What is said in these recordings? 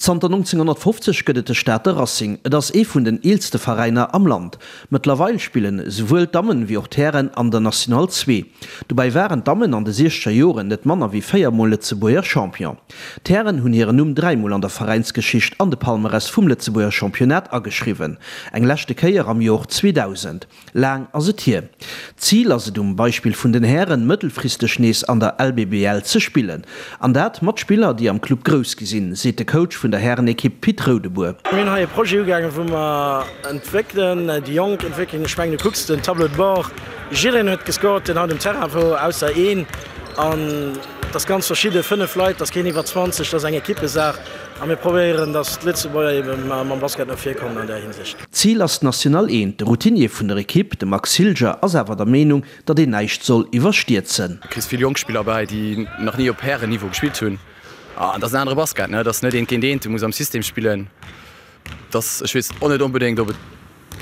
Zanter 1950 gëtt et de Stater Racing. Et ass ee vun den eelste Veräiner am Land. Mëttlerweil spillen esouwuel d'Dammen wéi och d'Hären an der National 2. Dobäi waren d'Dammen an de siechzeger Joren net manner wéi 4 mol Lëtzebuerger Champion. D'Hären hunn hiren Numm 3 mol an der Veräinsgeschicht an de Palmarès vum Lëtzebuerger Championnat ageschriwwen. Eng leschte Kéier am Jor 2000. Laang ass et hier. D'Zil ass et um Beispill vun den Hären, mëttelfristeg nees an der LBBL ze spillen. An dat mat Spiller, déi am Club grouss gi sinn, seet de Coach vun der Härenekipp Pit Roudebour. Mir hunn hei e Projet ugaangen, wou mer entwéckelen, déi Jonk entwéckelen. Ech mengen, du kucks den Tableau de bord, jiddereen huet gescored, deen haut um Terrain wor, ausser een. An et ass ganz verschidde, 5 Leit, et ass keen iwwer 20, et ass eng Ekippesaach. A mir probéieren, datt d'Lëtzebuerger ebe mam Basket no vir kommen an där Hinsicht. D'Zil ass d'National Eent. De Routinier vun der Ekipp, de Max Hilger, ass awer der Meenung, datt een näischt soll iwwerstierzen. Du kriss vill jonk Spiller bäi, déi nach ni op Härenniveau gespillt hunn. An dat ass en anere Basket, ne? Dat ass net eent géint eent, du muss am System spillen. Dat, ech weess och net onbedéngt, ob et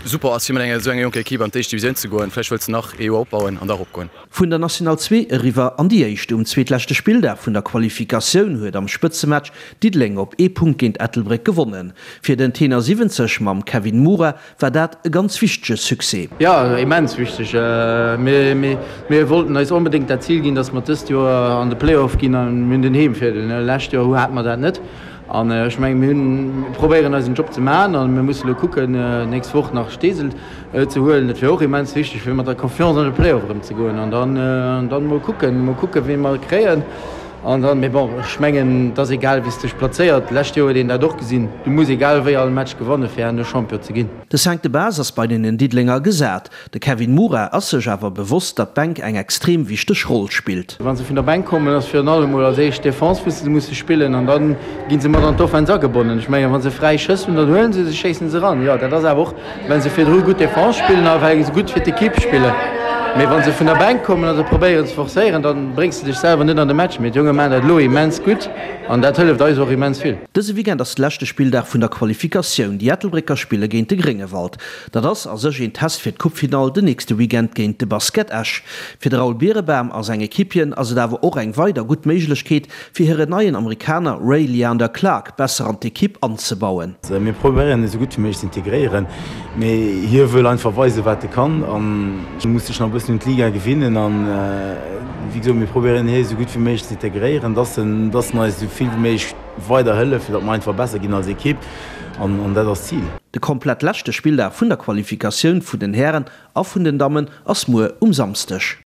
super ass, fir mat enger esou enger jonker Ekipp an d'éischt Divisioun ze goen. Vläicht wëlls de nach ee Joer opbauen an da eropgoen. Vun der National 2 eriwwer an déi éischt. Um zweetleschte Spilldag vun der Qualifikatioun huet am Spëtzematch Diddeleng op ee Punkt géint Ettelbréck gewonnen. Fir den Tenor 70 mam Kevin Mura war dat e ganz wichtege Succès. Jo, immens wichteg. Mir wollten eis onbedéngt dat Zil ginn, dass mer dëst Joer an de Play-off ginn a mir hunn den Heemvirdeel. Lescht Joer hate mer dat net an ech mengen, mir hunn, mir probéieren eisen Job ze maachen a mir musse lo kucken, nächst Woch nach Steesel ze huelen. Dat wier och immens wichteg, fir mat der Confiance an de Play-off erëm ze goen an dann, dann mol kucken, mol kucken, wee mer kréien. An dann, mee bon, ech mengen, et ass egal, wéi s de dech plazéiert. D'lescht Joer huet een dat och gesinn, du muss egal wéi all Match gewanne fir herno Champion ze ginn. De Cinq de base ass bei den Diddelenger gesat. De Kevin Mura ass sech awer bewosst, datt d'Bänk eng extrem wichteg Roll spillt. Wa se vun der Bänk kommen, ass virun allem mol als éischt d'Defense, wou se musse spillen an da gi se mat an d'Offense agebonnen. Ech mengen, wa se fräi Schëss hunn, dann huele se se, schéissen se eran. Jo, dat ass awer och Well se virdru gutt Defense spillen a well se gutt fir d'Ekipp spillen. Mee wa se vun der Bänk kommen a se probéieren ze forcéieren, da bréngs de dech selwer net an de Match. Mee d'Jonge maachen dat elo immens gutt an dat hëlleft eis och immens vill. Dëse Weekend ass de leschte Spilldag vun der Qualifikatioun. Déi Ettelbrécker spille géint de Gréngewald. Dat ass a sech een Test fir d'Coupefinall den nächste Weekend géint de Basket Esch. Fir de Raoul Birebaum a seng Equipieren ass et awer och eng weider gutt Méiglechkeet, fir hiren neien Amerikaner Ray Leander Clark besser an d'Ekipp anzebauen. Mir probéieren e sou gutt wéi méiglech ze integréieren, mee hie wëll einfach weisen, wat e kann an muss sech nach e bëssen un d'Liga gewinnen. An wéi gesot, mir probéieren hie sou gutt wéi méiglech ze integréieren, dass en dass en eis esou vill wéi méiglech weider hëlleft, fir datt mer einfach besser ginn als Ekipp an dat ass d'Zil. De komplett leschte Spilldag vun der Qualifikatioun vun den Hären a vun den Dammen ass muer um Samsdeg.